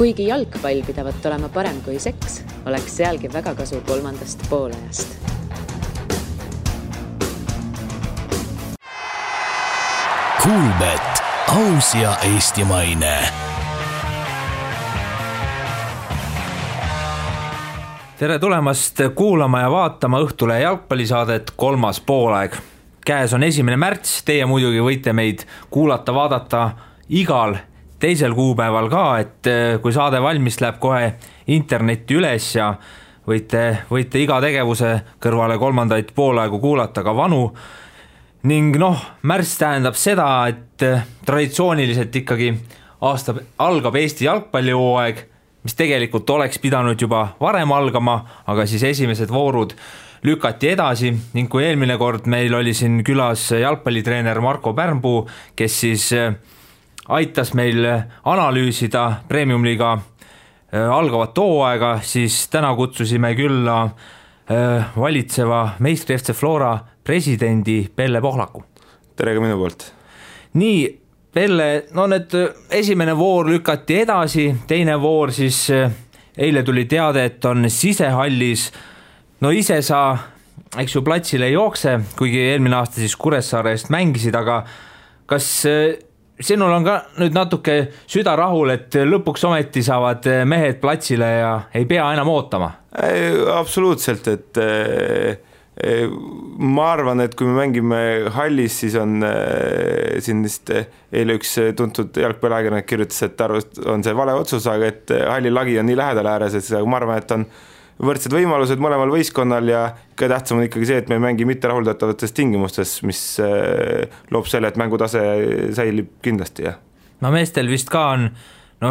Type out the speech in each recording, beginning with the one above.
Kuigi jalgpall pidavat olema parem kui seks, oleks sealgi väga kasu 3. poolajast. Kuulbet, aus ja eestimaine. Tere tulemast kuulama ja vaatama Õhtulehe jalgpallisaadet 3. poolaeg. Käes on 1. märts, teie muidugi võite meid kuulata, vaadata igal teisel kuupäeval ka, et kui saade valmis läheb kohe internetti üles ja võite iga tegevuse kõrvale 3. poolaegu kuulata ka vanu. Ning märts tähendab seda, et traditsiooniliselt ikkagi aasta algab Eesti jalgpallihooaeg, mis tegelikult oleks pidanud juba varem algama, aga siis esimesed voorud lükati edasi ning kui eelmine kord meil oli siin külas jalgpallitreener Marko Pärnpuu, kes siis aitas meil analüüsida Premium-liiga algavat hooaega, siis täna kutsusime külla valitseva meistri FC Flora presidendi Pelle Pohlaku. Tere ka minu poolt. Nii, Pelle, need esimene voor lükati edasi, teine voor siis eile tuli teade, et on sisehallis. Ise sa, eks ju, platsile ei jookse, kuigi eelmine aasta siis Kuressaare eest mängisid, aga kas sinul on ka nüüd natuke süda rahul, et lõpuks ometi saavad mehed platsile ja ei pea enam ootama? Absoluutselt, et ma arvan, et kui me mängime hallis, siis on siin vist eile üks tuntud jalgpalliajakirjanik kirjutas, et on see vale otsus, aga et halli lagi on nii lähedal ääres, et ma arvan, et on võrdsed võimalused mõlemal võistkonnal ja ka tähtsam on ikkagi see, et me mängi mitte rahuldatavates tingimustes, mis loob selle, et mängutase säilib kindlasti. Ja. Meestel vist ka on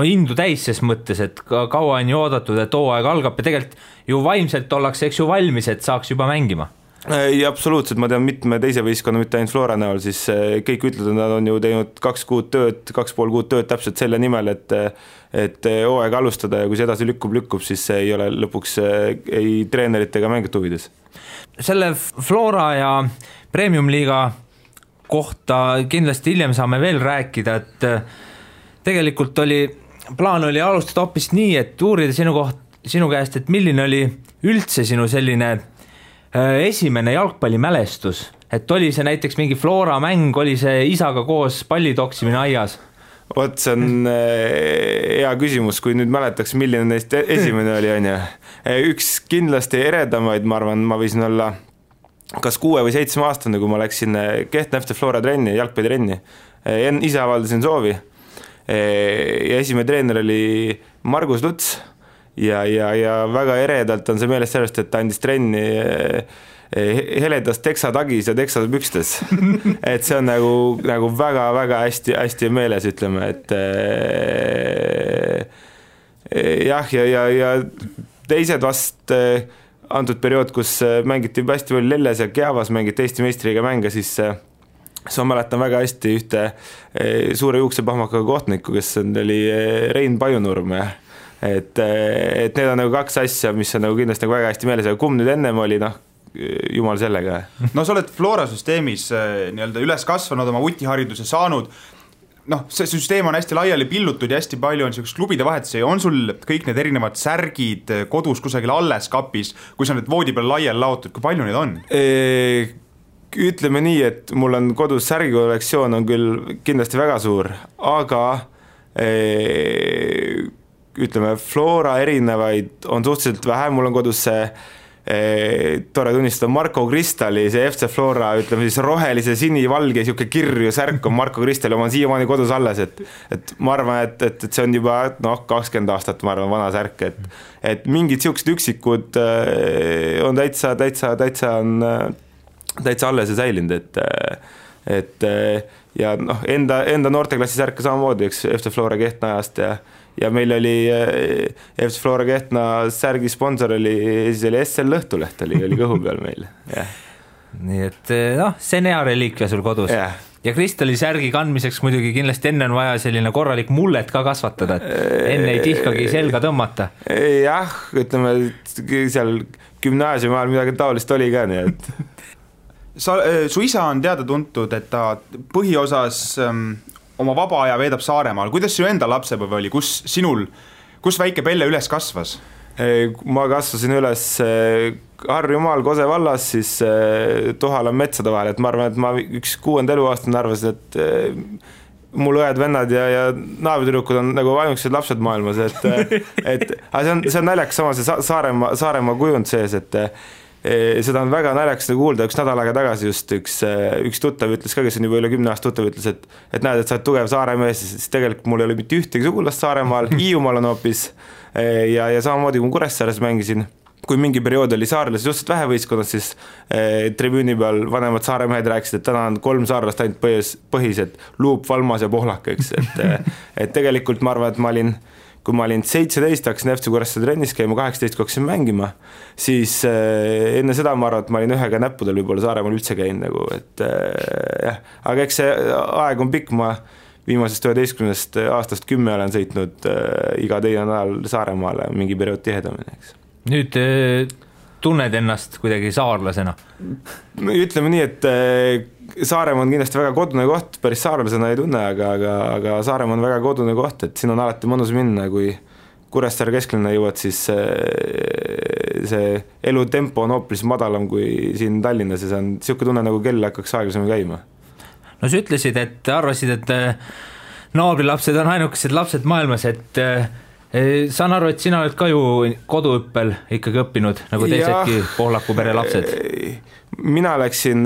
indu täis ses mõttes, et kaua on ju oodatud, et hooaeg algab ja tegelikult ju vaimselt ollakse, eks ju, valmis, et saaks juba mängima. Ja absoluutselt, ma tean mitme teise võistkonna, mitte ainult Flora näol, siis kõik ütlevad, et nad on ju teinud 2,5 kuud tööd täpselt selle nimel, et hooaeg alustada ja kui see edasi lükkub, siis see ei ole lõpuks ei treenerite ega mängijate huvides. Selle Flora ja Premium-liiga kohta kindlasti hiljem saame veel rääkida, et tegelikult plaan oli alustada hoopis nii, et uurida sinu käest, et milline oli üldse sinu selline esimene jalgpallimälestus, et oli see näiteks mingi Flora mäng, oli see isaga koos pallitoksimine aias? See on hea küsimus, kui nüüd mäletaks, milline neist esimene oli, on ju. Üks kindlasti eredamaid, ma arvan, ma võisin olla kas 6 või 7 aastane, kui ma läksin Kehtna FC Flora trenni, jalgpallitrenni. Ise avaldasin soovi. Ja esimene treener oli Margus Luts ja väga eredalt on see meelest sellest, et ta andis trenni heledas teksatagis ja teksapükstes. Et see on nagu väga-väga hästi meeles, ütleme, et jah, ja teised vast antud periood, kus mängiti hästi palju Lelles ja Keavas, mängiti Eesti meistriga mänge, siis ma mäletan väga hästi ühte suure juuksepahmakaga kohtniku, kes oli Rein Pajunurm. Et need on nagu 2 asja, mis on nagu kindlasti nagu väga hästi meeles, aga kumb nüüd ennem oli, jumal sellega. Sa oled Flora süsteemis nii-öelda üles kasvanud, oma utihariduse saanud. See süsteem on hästi laiali pillutud ja hästi palju on selliseks klubide vahetusi. On sul kõik need erinevad särgid kodus kusagil alles kapis, kui sa need voodi peal laiali laotud, kui palju neid on? Ütleme nii, et mul on kodus särgikollektsioon on küll kindlasti väga suur, aga ütleme, Flora erinevaid on suhteliselt vähe, mul on kodus see tore tunnistada Marko Kristali, see FC Flora, ütleme siis rohelise sinivalge siuke kirju särk on Marko Kristali, oma siiamaani kodus alles, et ma arvan, et see on juba 20 aastat, ma arvan, vana särk, et mingid siuksed üksikud on täitsa alles ja säilinud, et ja enda noorteklassi särka samamoodi, eks FC Flora Kehtna ajast ja meil oli FC Flora Kehtna särgi sponsor oli SL Lõhtuleht oli kõhu peal meil. Ja. Nii et see on hea reliikvia sul kodus. Ja Kristali särgi kandmiseks muidugi kindlasti enne on vaja selline korralik mullet ka kasvatada, et enne ei tihkagi selga tõmmata. Jah, ütleme, seal gümnaasiumi ajal midagi taolist oli ka, nii et su isa on teada tuntud, et ta põhiosas oma vaba aja veedab Saaremaal. Kuidas sinu enda lapsepõev oli? Kus sinul Kus väike Pelle üles kasvas? Ma kasvasin üles Harjumaal Kose vallas, siis Tohala metsade vahel, et ma arvan, et ma üks 6. eluaastane arvasin, et mul õed-vennad ja naabritüdrukud on nagu ainukesed lapsed maailmas, et see on naljakas sama see Saaremaa kujund sees, et seda on väga naljakas kuulda, üks nädal aega tagasi just üks tuttav ütles ka, kes on juba üle 10 aasta tuttav, ütles, et näed, et sa oled tugev Saaremees, siis tegelikult mul ei ole mitte ühtegi sugulast Saaremaal, Hiiumaal on hoopis ja samamoodi kui Kuressaares mängisin, kui mingi periood oli saarlasi suhteliselt vähe võistkonnas, siis tribüüni peal vanemad Saaremehed rääkisid, et täna on 3 saarlast ainult põhised, Luup, Valmas ja Pohlak, eks, et tegelikult ma arvan, et kui ma olin 17, hakkasin FC Kuressaare trennis käima, 18 kui hakkasin mängima, siis enne seda ma arvan, et ma olin ühega näppudel võib-olla Saaremaal üldse käin nagu, et jah, aga eks see aeg on pikk, ma viimasest 11 aastast 10 olen sõitnud iga teine nädal Saaremaale mingi periood tihedamini, eks. Nüüd tunned ennast kuidagi saarlasena? Ütleme nii, et Saaremaa on kindlasti väga kodune koht, päris saarlasena ei tunne, aga Saaremaa on väga kodune koht, et siin on alati mõnus minna, kui Kuressaare kesklinna jõuad, siis see elutempo on hoopis madalam kui siin Tallinnas ja see on siuke tunne, nagu kell hakkaks aeglasemalt käima. No sa ütlesid, et arvasid, et naabrilapsed on ainukesed lapsed maailmas, et saan aru, et sina oled ka ju koduõppel ikkagi õppinud, nagu teisedki Pohlaku pere lapsed. Mina läksin,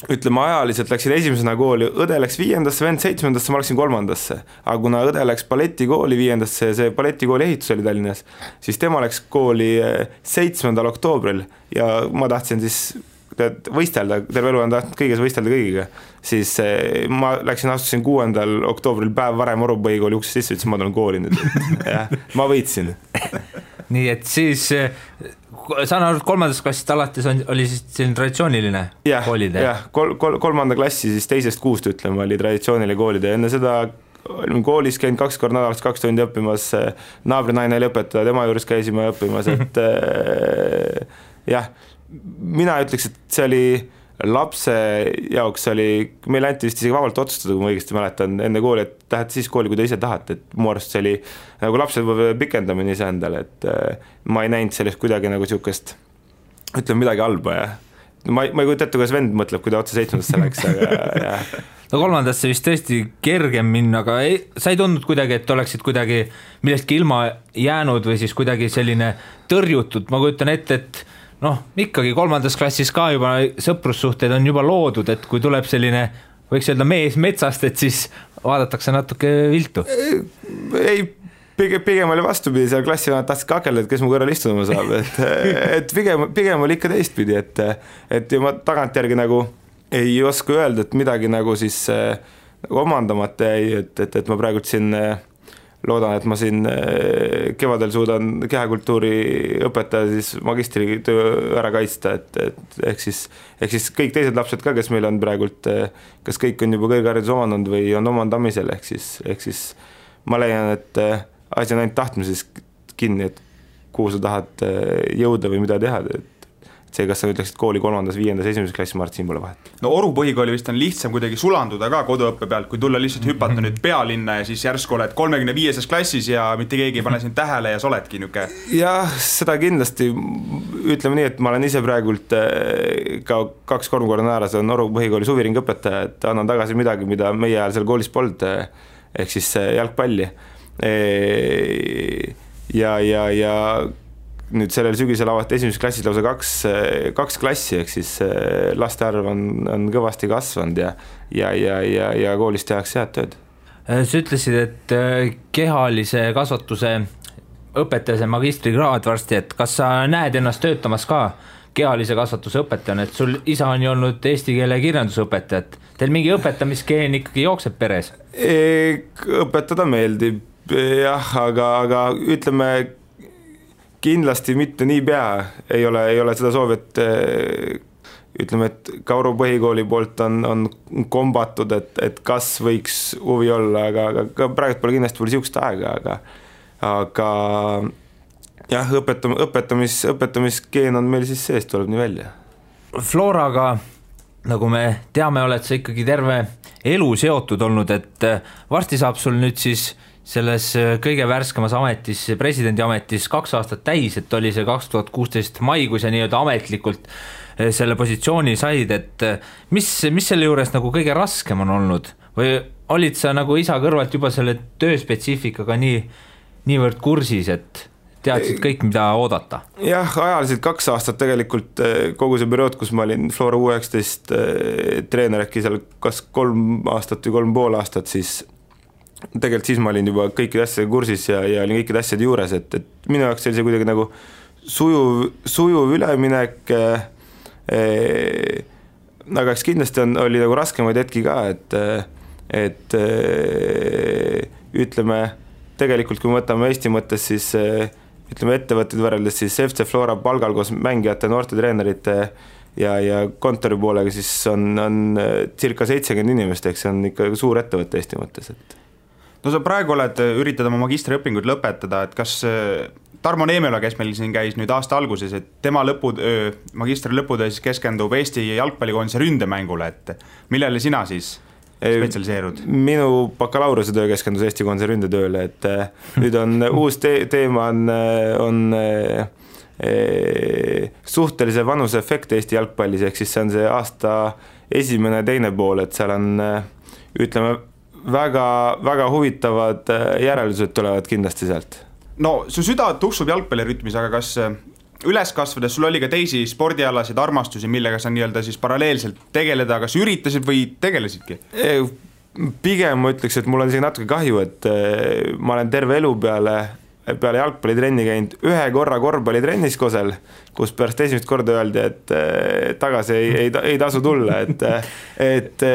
ütleme ajaliselt läksin esimesena kooli, õde läks 5., vend 7., ma läksin 3., aga kuna õde läks balletikooli 5., see balletikooli ehitus oli Tallinnas, siis tema läks kooli 7. oktoobril ja ma tahtsin siis võistelda, terve elu on tahtnud kõiges võistelda kõigiga, siis ma astusin 6. oktoobril päev varem Oru põhikooli uksest sisse, ütlesin, ma tulen kooli nüüd, jah, ma võitsin. Nii et siis saan aru, et 3. klassist alates oli siis selline traditsiooniline koolide? Jah, 3. klassi siis 2.–6. ütleme, oli traditsiooniline koolide, enne seda olime koolis käinud 2 korda nädalas 2 tundi õppimas, naabrinaine oli õpetaja, tema juures käisime õppimas, et jah, mina ütleks, et see oli lapse jaoks meil anti vist isegi vabalt otsustada, kui ma õigesti mäletan, enne kooli, et lähete siis kooli, kui te ise tahate, et mu arust see oli nagu lapsed pikendamine ise endale, et ma ei näinud sellest kuidagi nagu siukest, ütleme midagi halba ja ma ei kujuta ette, kuidas vend mõtleb, kui ta otse 7. läks, aga jah. No 3. vist tõesti kergem minna, aga sa ei tundnud kuidagi, et oleksid kuidagi millestki ilma jäänud või siis kuidagi selline tõrjutud, ma kujutan ette, et ikkagi 3. klassis ka juba sõprussuhted on juba loodud, et kui tuleb selline, võiks öelda mees metsast, et siis vaadatakse natuke viltu. Ei, pigem oli vastupidi, seal klassivanad tahtsid kakelda, et kes mu kõrval istuma saab, et pigem oli ikka teistpidi, et ma tagantjärgi nagu ei oska öelda, et midagi nagu siis omandamata jäi, et ma praegult siin loodan, et ma siin kevadel suudan kehakultuuri õpetaja siis magistritöö ära kaitsta, et ehk siis kõik teised lapsed ka, kes meil on praegult, kas kõik on juba kõrgharidus omandanud või on omandamisel, ehk siis ma leian, et asi on ainult tahtmises kinni, et kuhu sa tahad jõuda või mida teha, see, kas sa ütleksid kooli 3., 5., 1. klassi, ma arvan, siin pole vahet. No Oru põhikooli vist on lihtsam kuidagi sulanduda ka koduõppe pealt, kui tulla lihtsalt hüpata nüüd pealinna ja siis järsku oled 35. klassis ja mitte keegi ei pane sind tähele ja sa oledki niuke. Jah, seda kindlasti, ütleme nii, et ma olen ise praegult ka 2-3 korda nädalas on Oru põhikooli suviring õpetaja, et annan tagasi midagi, mida meie ajal seal koolis polnud, ehk siis jalgpalli. Ja nüüd sellel sügisel avati 1. klassis lausa 2 klassi, ehk siis laste arv on kõvasti kasvanud ja koolis tehakse head tööd. Sa ütlesid, et kehalise kasvatuse õpetaja magistrikraad varsti, et kas sa näed ennast töötamas ka kehalise kasvatuse õpetajana, et sul isa on ju olnud eesti keele kirjandusõpetaja, et teil mingi õpetamiskeen ikkagi jookseb peres? Õpetada meeldib, jah, aga ütleme kindlasti mitte nii pea, ei ole seda soovi, et ütleme, et ka Oru põhikooli poolt on kombatud, et kas võiks huvi olla, aga praegu pole kindlasti siukest aega, aga jah, õpetamiskeen on meil siis sees, tuleb nii välja. Floraga, nagu me teame, oled sa ikkagi terve elu seotud olnud, et varsti saab sul nüüd siis selles kõige värskemas ametis, presidendi ametis 2 aastat täis, et oli see 2016 maikuus ja nii-öelda ametlikult selle positsiooni said, et mis selle juures nagu kõige raskem on olnud või olid sa nagu isa kõrvalt juba selle tööspetsiifikaga niivõrd kursis, et teadsid kõik, mida oodata? Jah, ajaliselt 2 aastat tegelikult kogu see periood, kus ma olin Flora U19 treener, äkki seal kas 3 aastat või 3,5 aastat, siis tegelikult siis ma olin juba kõikide asjade kursis ja olin kõikide asjade juures, et minu jaoks oli see kuidagi nagu sujuv üleminek, aga eks kindlasti oli nagu raskemaid hetki ka, et ütleme, tegelikult kui me võtame Eesti mõttes, siis ütleme ettevõtted võrreldes siis FC Flora palgal koos mängijate, noorte treenerite ja kontori poolega, siis on circa 70 inimest, eks see on ikka suur ettevõte Eesti mõttes, et no sa praegu üritad oma magistriõpinguid lõpetada, et kas Tarmo Neemela, kes meil siin käis nüüd aasta alguses, et tema magistri lõputöö siis keskendub Eesti jalgpallikoondise ründemängule, et millele sina siis spetsialiseerud? Minu bakalaureusetöö keskendus Eesti koondise ründetööle, et nüüd on uus teema on suhtelise vanuse efekt Eesti jalgpallis, ehk siis see on see aasta esimene, teine pool, et seal on ütleme väga, väga huvitavad järeldused tulevad kindlasti sealt. No su süda tuksub jalgpallirütmis, aga kas üles kasvades sul oli ka teisi spordialasid armastusi, millega sa nii-öelda siis paralleelselt tegeleda, kas üritasid või tegelesidki? Pigem ma ütleks, et mul on isegi natuke kahju, et ma olen terve elu peale jalgpallitrenni käinud 1 korra korvpallitrennis Kosel, kus pärast esimest korda öeldi, et tagasi ei tasu tulla, et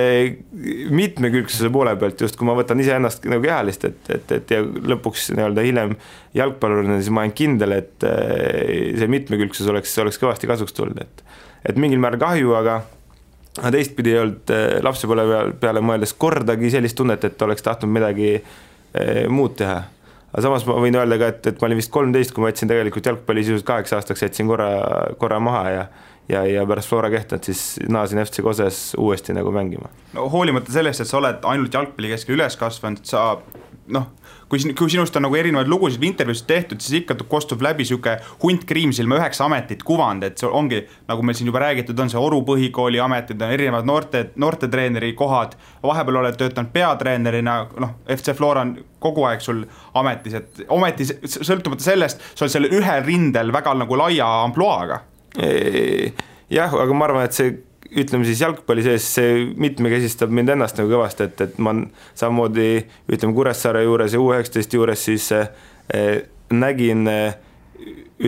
mitmekülgsuse poole pealt, just kui ma võtan ise ennast nagu kehalist, et ja lõpuks nii-öelda hiljem jalgpallurina, siis ma olen kindel, et see mitmekülgsus oleks kõvasti kasuks tulnud, et mingil määral kahju, aga teistpidi ei olnud lapsepõle peale mõeldes kordagi sellist tunnet, et oleks tahtnud midagi muud teha. Aga samas ma võin öelda ka, et ma olin vist 13, kui ma jätsin tegelikult jalgpalli sisuliselt 8 aastaks, jätsin korra maha ja pärast Flora Kehtnat siis naasin FC Koses uuesti nagu mängima. No, hoolimata sellest, et sa oled ainult jalgpalli keskel üles kasvanud, sa kui sinust on nagu erinevaid lugusid või intervjuusid tehtud, siis ikka kostub läbi siuke hunt kriimsilma 9 ametit kuvand, et see ongi, nagu meil siin juba räägitud, on see Oru põhikooli ametid, on erinevad noorte treeneri kohad, vahepeal oled töötanud peatreenerina, FC Flora on kogu aeg sul ametis, et ometi sõltumata sellest, sa oled selle ühel rindel väga nagu laia ampluaaga. Jah, aga ma arvan, et see ütleme siis jalgpalli sees, see mitmekesistab mind ennast nagu kõvasti, et ma samamoodi ütleme Kuressaare juures ja U19 juures siis nägin,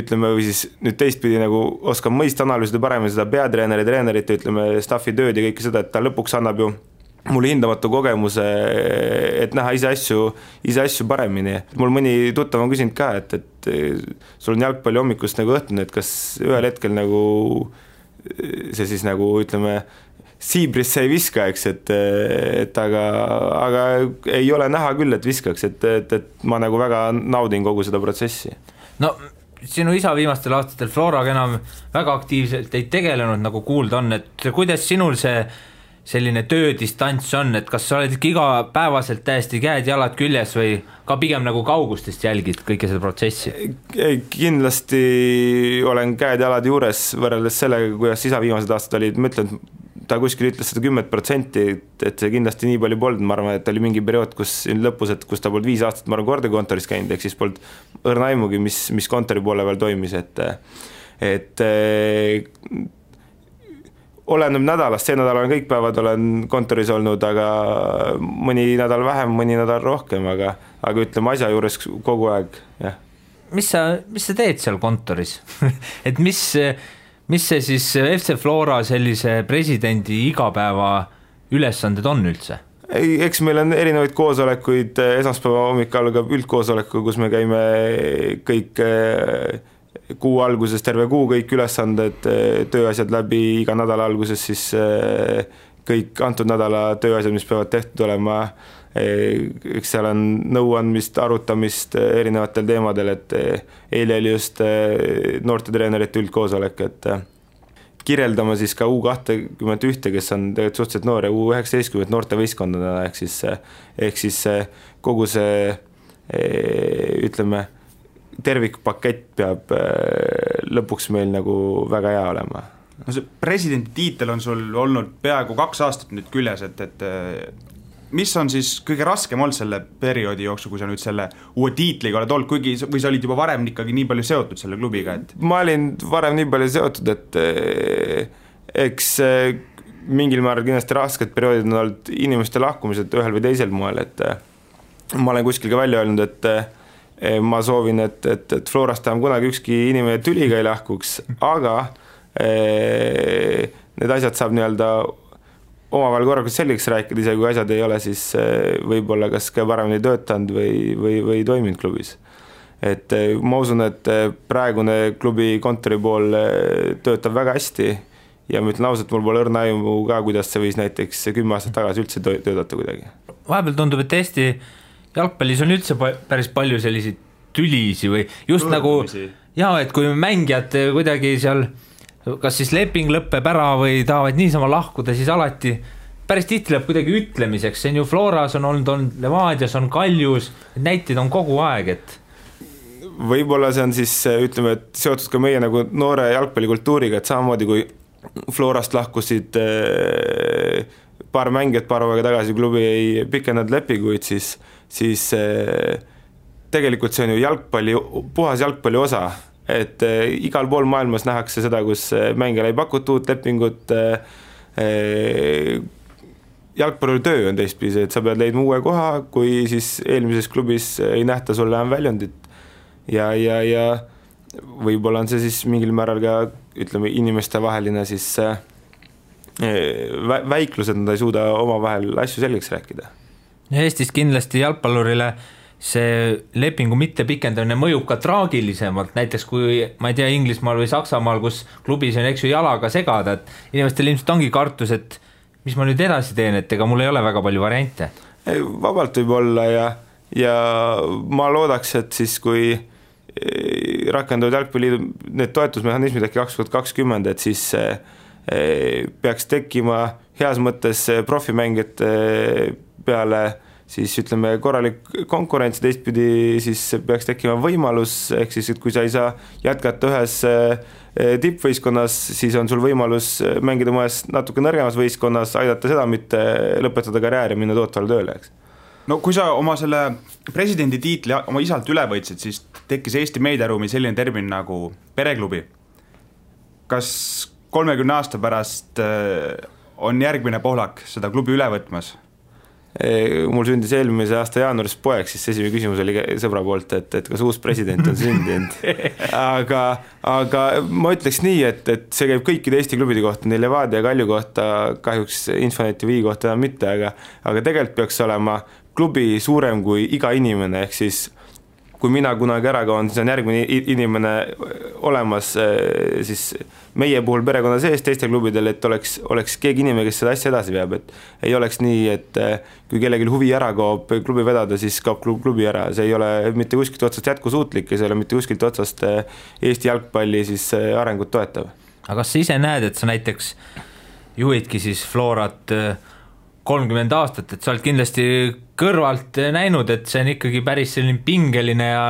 ütleme või siis nüüd teistpidi nagu oskan mõista analüüsida paremini seda peatreeneri, treenerite, ütleme staffi tööd ja kõike seda, et ta lõpuks annab ju mulle hindamatu kogemuse, et näha ise asju paremini. Mul mõni tuttav on küsinud ka, et sul on jalgpalli hommikust nagu õhtune, et kas ühel hetkel nagu see siis nagu ütleme siibrisse ei viska, eks, et aga ei ole näha küll, et viskaks, et ma nagu väga naudin kogu seda protsessi. No sinu isa viimastel aastatel Floraga enam väga aktiivselt ei tegelenud, nagu kuulda on, et kuidas sinul see selline töödistants on, et kas sa oled ikka igapäevaselt täiesti käed-jalad küljes või ka pigem nagu kaugustest jälgid kõike seda protsessi? Kindlasti olen käed-jalad juures võrreldes sellega, kuidas isa viimased aastad olid, ma ütlen, ta kuskil ütles seda 10%, et see kindlasti nii palju polnud, ma arvan, et oli mingi periood, kus lõpus, et kus ta polnud 5 aastat, ma arvan, kordekontoris käinud, ehk siis polnud õrna aimugi, mis kontori poole veel toimis, et oleneb nädalast, see nädal olen kõik päevad olen kontoris olnud, aga mõni nädal vähem, mõni nädal rohkem, aga ütleme asja juures kogu aeg, jah. Mis sa teed seal kontoris? Et mis see siis FC Flora sellise presidendi igapäeva ülesanded on üldse? Eks meil on erinevaid koosolekuid, esmaspäeva hommikul algab üldkoosoleku, kus me käime kõik kuu alguses terve kuu kõik ülesanded, tööasjad läbi, iga nädala alguses siis kõik antud nädala tööasjad, mis peavad tehtud olema, eks seal on nõuandmist, arutamist erinevatel teemadel, et eile oli just noortetreenerite üldkoosolek, et kirjeldama siis ka U21, kes on tegelikult suhteliselt noor ja U19 noortevõistkondadena, ehk siis kogu see ütleme, tervikpakett peab lõpuks meil nagu väga hea olema. No see presidendi tiitel on sul olnud peaaegu 2 aastat nüüd küljes, et mis on siis kõige raskem olnud selle perioodi jooksul, kui sa nüüd selle uue tiitliga oled olnud, kuigi või sa olid juba varem ikkagi nii palju seotud selle klubiga? Et... Ma olin varem nii palju seotud, et eks mingil määral kindlasti rasked perioodid on olnud inimeste lahkumised ühel või teisel moel, et ma olen kuskil ka välja öelnud, et ma soovin, et Florast enam kunagi ükski inimene tüliga ei lahkuks, aga need asjad saab nii-öelda omavahel korralikult selgeks rääkida, ise kui asjad ei ole, siis võib-olla kas ka paremini töötanud või toiminud klubis. Et ma usun, et praegune klubi kontori pool töötab väga hästi ja ma ütlen ausalt, mul pole õrna aimu ka, kuidas see võis näiteks 10 aastat tagasi üldse töötada kuidagi. Vahepeal tundub, et Eesti jalgpallis on üldse päris palju selliseid tülisi või just Tõrdumisi. nagu, et kui mängijad kuidagi seal kas siis leping lõpeb ära või tahavad niisama lahkuda, siis alati päris tihti läheb kuidagi ütlemiseks, see on ju Floras on olnud Levadias, on Kaljus, näiteid on kogu aeg, et võib-olla see on siis, ütleme, et seotud ka meie nagu noore jalgpallikultuuriga, et samamoodi kui Florast lahkusid paar mängijat paar aega tagasi, klubi ei pikendanud lepinguid, siis tegelikult see on ju jalgpalli, puhas jalgpalli osa, et igal pool maailmas nähakse seda, kus mängijale ei pakuta uut lepingut, jalgpalli töö on teistpidi, et sa pead leidma uue koha, kui siis eelmises klubis ei nähta sulle enam väljundit ja võib-olla on see siis mingil määral ka, ütleme, inimeste vaheline siis väiklus, et nad ei suuda omavahel asju selgeks rääkida. Eestis kindlasti jalgpallurile see lepingu mitte pikendamine mõjub ka traagilisemalt, näiteks kui, ma ei tea, Inglismaal või Saksamaal, kus klubis on eks ju jalaga segada, et inimestel ilmselt ongi kartus, et mis ma nüüd edasi teen, et ega mul ei ole väga palju variante. Vabalt võib olla ja ma loodaks, et siis kui rakenduvad jalgpalliliidu need toetusmehhanismid äkki 2020, et siis peaks tekkima heas mõttes profimängijate peale siis ütleme korralik konkurents, teistpidi siis peaks tekkima võimalus, ehk siis, et kui sa ei saa jätkata ühes tippvõistkonnas, siis on sul võimalus mängida mõnes natuke nõrgemas võistkonnas, aidata seda, mitte lõpetada karjääri ja minna tootvale tööle, eks. No kui sa oma selle presidendi tiitli oma isalt üle võitsid, siis tekkis Eesti meediaruumi selline termin nagu pereklubi. Kas 30 aasta pärast on järgmine Pohlak seda klubi üle võtmas? Mul sündis eelmise aasta jaanuaris poeg, siis esimene küsimus oli sõbra poolt, et kas uus president on sündinud. aga ma ütleks nii, et see käib kõikide Eesti klubide kohta, nii Levadia ja Kalju kohta, kahjuks Infoneti Vii kohta mitte, aga tegelikult peaks olema klubi suurem kui iga inimene, ehk siis kui mina kunagi ära kaon, siis on järgmine inimene olemas siis meie puhul perekonna sees teiste klubidel, et oleks keegi inimene, kes seda asja edasi veab, et ei oleks nii, et kui kellelgi huvi ära kaob klubi vedada, siis kaob klubi ära, see ei ole mitte kuskilt otsast jätkusuutlik ja see ei ole mitte kuskilt otsast Eesti jalgpalli siis arengut toetav. Aga kas sa ise näed, et sa näiteks juhidki siis Florat 30 aastat, et sa oled kindlasti kõrvalt näinud, et see on ikkagi päris selline pingeline ja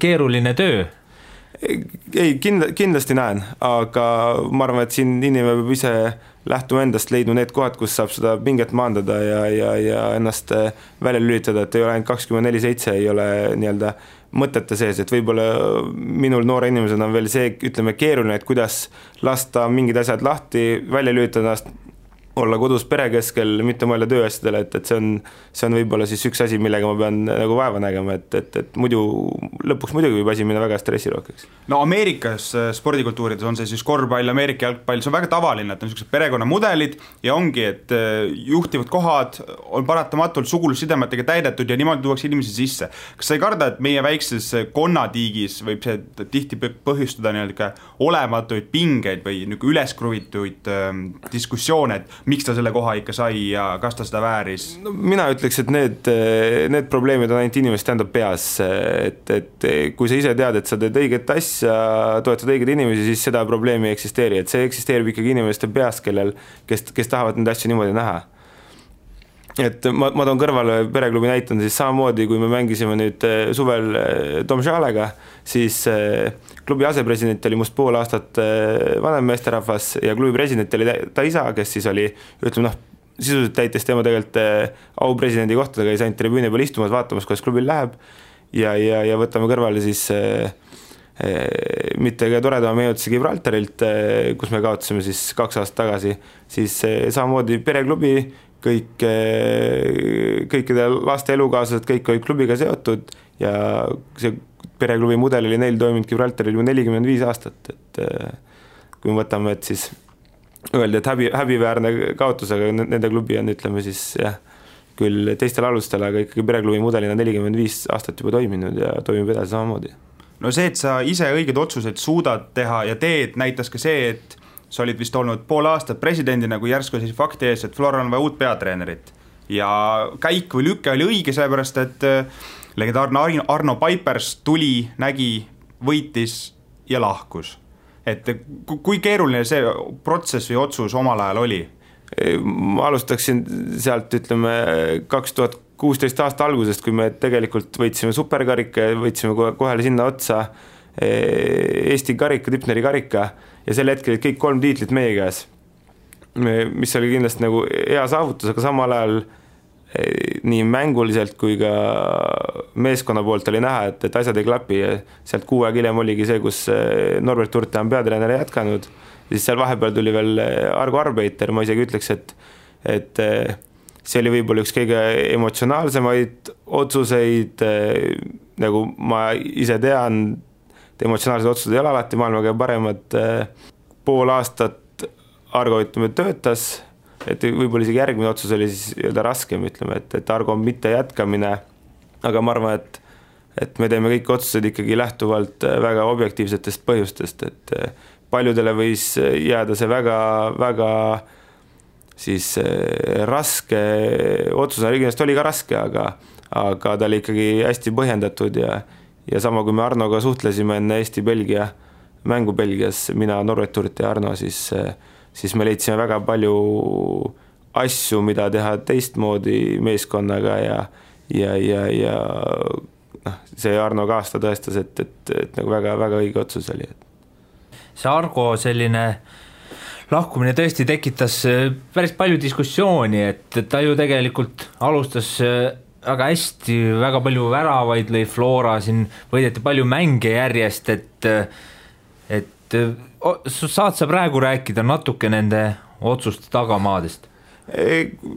keeruline töö? Ei, kindlasti näen, aga ma arvan, et siin inimene peab ise lähtuma endast, leidma need kohad, kus saab seda pinget maandada ja ennast välja lülitada, et ei ole ainult 24/7, ei ole nii-öelda mõtete sees, et võib-olla minul noore inimesena on veel see, ütleme, keeruline, et kuidas lasta mingid asjad lahti, välja lülitada ennast, olla kodus pere keskel, mitte mõelda tööasjadele, et see on võib-olla siis üks asi, millega ma pean nagu vaeva nägema, et muidu lõpuks muidugi võib asi minna väga stressirohkeks. No Ameerikas spordikultuurides on see siis korvpall, Ameerika jalgpall, see on väga tavaline, et on sellised perekonnamudelid ja ongi, et juhtivad kohad on paratamatult sugulussidemetega täidetud ja niimoodi tuuakse inimesi sisse. Kas sa ei karda, et meie väikses konnatiigis võib see tihti põhjustada nii-öelda olematuid pingeid või üleskruvituid diskussioone, et miks ta selle koha ikka sai ja kas ta seda vääris? No, mina ütleks, et need probleemid on ainult inimeste enda peas, et kui sa ise tead, et sa teed õiget asja, toetad õigeid inimesi, siis seda probleemi ei eksisteeri, et see eksisteerib ikkagi inimeste peas, kes tahavad neid asju niimoodi näha. et ma toon kõrvale pereklubi näitanud, siis samamoodi, kui me mängisime nüüd suvel Domžalega, siis klubi asepresident oli must pool aastat vanem meesterahvas ja klubi president oli ta isa, kes siis oli, ütleme sisuliselt täites tema tegelikult aupresidendi kohtadega, käis ainult tribüüni peal istumas, vaatamas, kuidas klubil läheb ja võtame kõrvale siis mitte ka toredama meenutuse Gibraltarilt, kus me kaotasime siis 2 aastat tagasi, siis samamoodi pereklubi, kõikide laste elukaaslased, kõik olid klubiga seotud ja see pereklubi mudel oli neil toiminud Gibraltaril juba 45 aastat, et kui me võtame, et siis öeldi, et häbiväärne kaotus, aga nende klubi on, ütleme siis jah, küll teistel alustel, aga ikkagi pereklubi mudelina 45 aastat juba toiminud ja toimib edasi samamoodi. No see, et sa ise õiged otsuseid suudad teha ja teed, näitas ka see, et sa olid vist olnud pool aastat presidendina, kui järsku siis fakti ees, et Floral on vaja uut peatreenerit. Ja käik või lüke oli õige, sellepärast, et legendaarne Arno Paipers tuli, nägi, võitis ja lahkus. Et kui keeruline see protsess või otsus omal ajal oli? Ma alustaksin sealt, ütleme, 2016 aasta algusest, kui me tegelikult võitsime superkarika ja võitsime kohale sinna otsa Eesti karika, Tipneri karika ja sel hetkel kõik 3 tiitlit meie käes, mis oli kindlasti nagu hea saavutus, aga samal ajal nii mänguliselt kui ka meeskonna poolt oli näha, et asjad ei klapi ja sealt 6 aeg hiljem oligi see, kus Norbert Urte on peatreener jätkanud, siis seal vahepeal tuli veel Argo Arbeiter, ma isegi ütleks, et see oli võib-olla üks kõige emotsionaalsemaid otsuseid, nagu ma ise tean, emotsionaalsed otsused ei ole alati maailma kõige paremad, pool aastat Argo töötas, et võib-olla isegi järgmine otsus oli siis öelda raskem, ütleme, et Argo on mitte jätkamine, aga ma arvan, et me teeme kõik otsused ikkagi lähtuvalt väga objektiivsetest põhjustest, et paljudele võis jääda see väga siis raske otsus, kindlasti oli ka raske, aga ta oli ikkagi hästi põhjendatud ja sama kui me Arnoga suhtlesime enne Eesti-Belgia mängu Belgias, mina, Norbert Urt ja Arno, siis me leidsime väga palju asju, mida teha teistmoodi meeskonnaga ja see Arno ka aasta tõestas, et nagu väga õige otsus oli. See Argo selline lahkumine tõesti tekitas päris palju diskussiooni, et ta ju tegelikult alustas väga hästi, väga palju väravaid lõi Flora, siin võideti palju mänge järjest, et saad sa praegu rääkida natuke nende otsuste tagamaadest?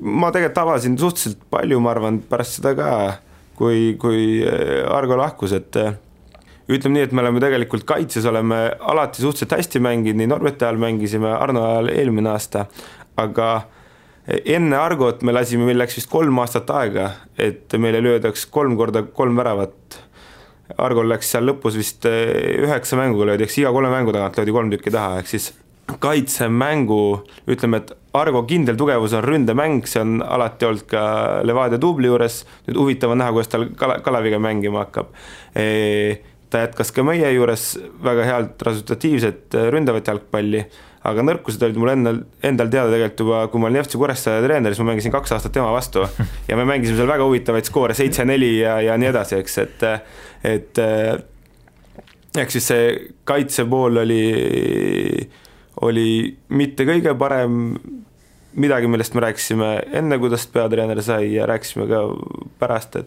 Ma tegelikult avasin suhteliselt palju, ma arvan, pärast seda ka, kui Argo lahkus, et ütleme nii, et me oleme tegelikult kaitses, oleme alati suhteliselt hästi mänginud, nii Norbeti ajal mängisime, Arno ajal eelmine aasta, aga enne Argot me lasime, meil läks vist 3 aastat aega, et meile löödaks 3 korda 3 väravat. Argol läks seal lõpus vist 9 mänguga löödi, eks iga 3 mängu tagant löödi 3 tükki taha, ehk siis kaitsemängu, ütleme, et Argo kindel tugevus on ründemäng, see on alati olnud ka Levadia dubli juures, nüüd huvitav on näha, kuidas tal Kaleviga mängima hakkab. Ta jätkas ka meie juures väga healt resultatiivset ründavat jalgpalli, aga nõrkused olid mul endal teada tegelikult juba, kui ma olin FC Kuressaare treener, siis ma mängisin 2 aastat tema vastu ja me mängisime seal väga huvitavaid skoore, 7-4 ja nii edasi, eks, et eks siis see kaitsepool oli mitte kõige parem, midagi, millest me rääkisime enne, kuidas peatreener sai ja rääkisime ka pärast,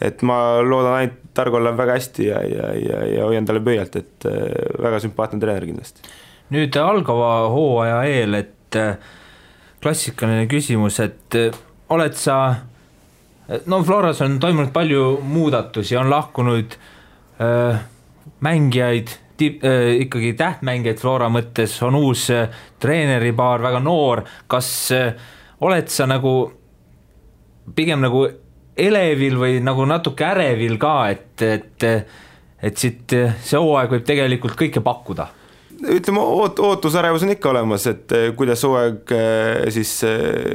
et ma loodan ainult Argolle väga hästi ja hoian talle pöialt, et väga sümpaatne treener kindlasti. Nüüd algava hooaja eel, et klassikaline küsimus, et oled sa, no Floras on toimunud palju muudatusi, on lahkunud mängijaid, ikkagi tähtmängijaid Flora mõttes, on uus treeneripaar, väga noor, kas oled sa nagu pigem nagu elevil või nagu natuke ärevil ka, et siit see hooaeg võib tegelikult kõike pakkuda? Ütleme, ootusärevus on ikka olemas, et kuidas hooaeg siis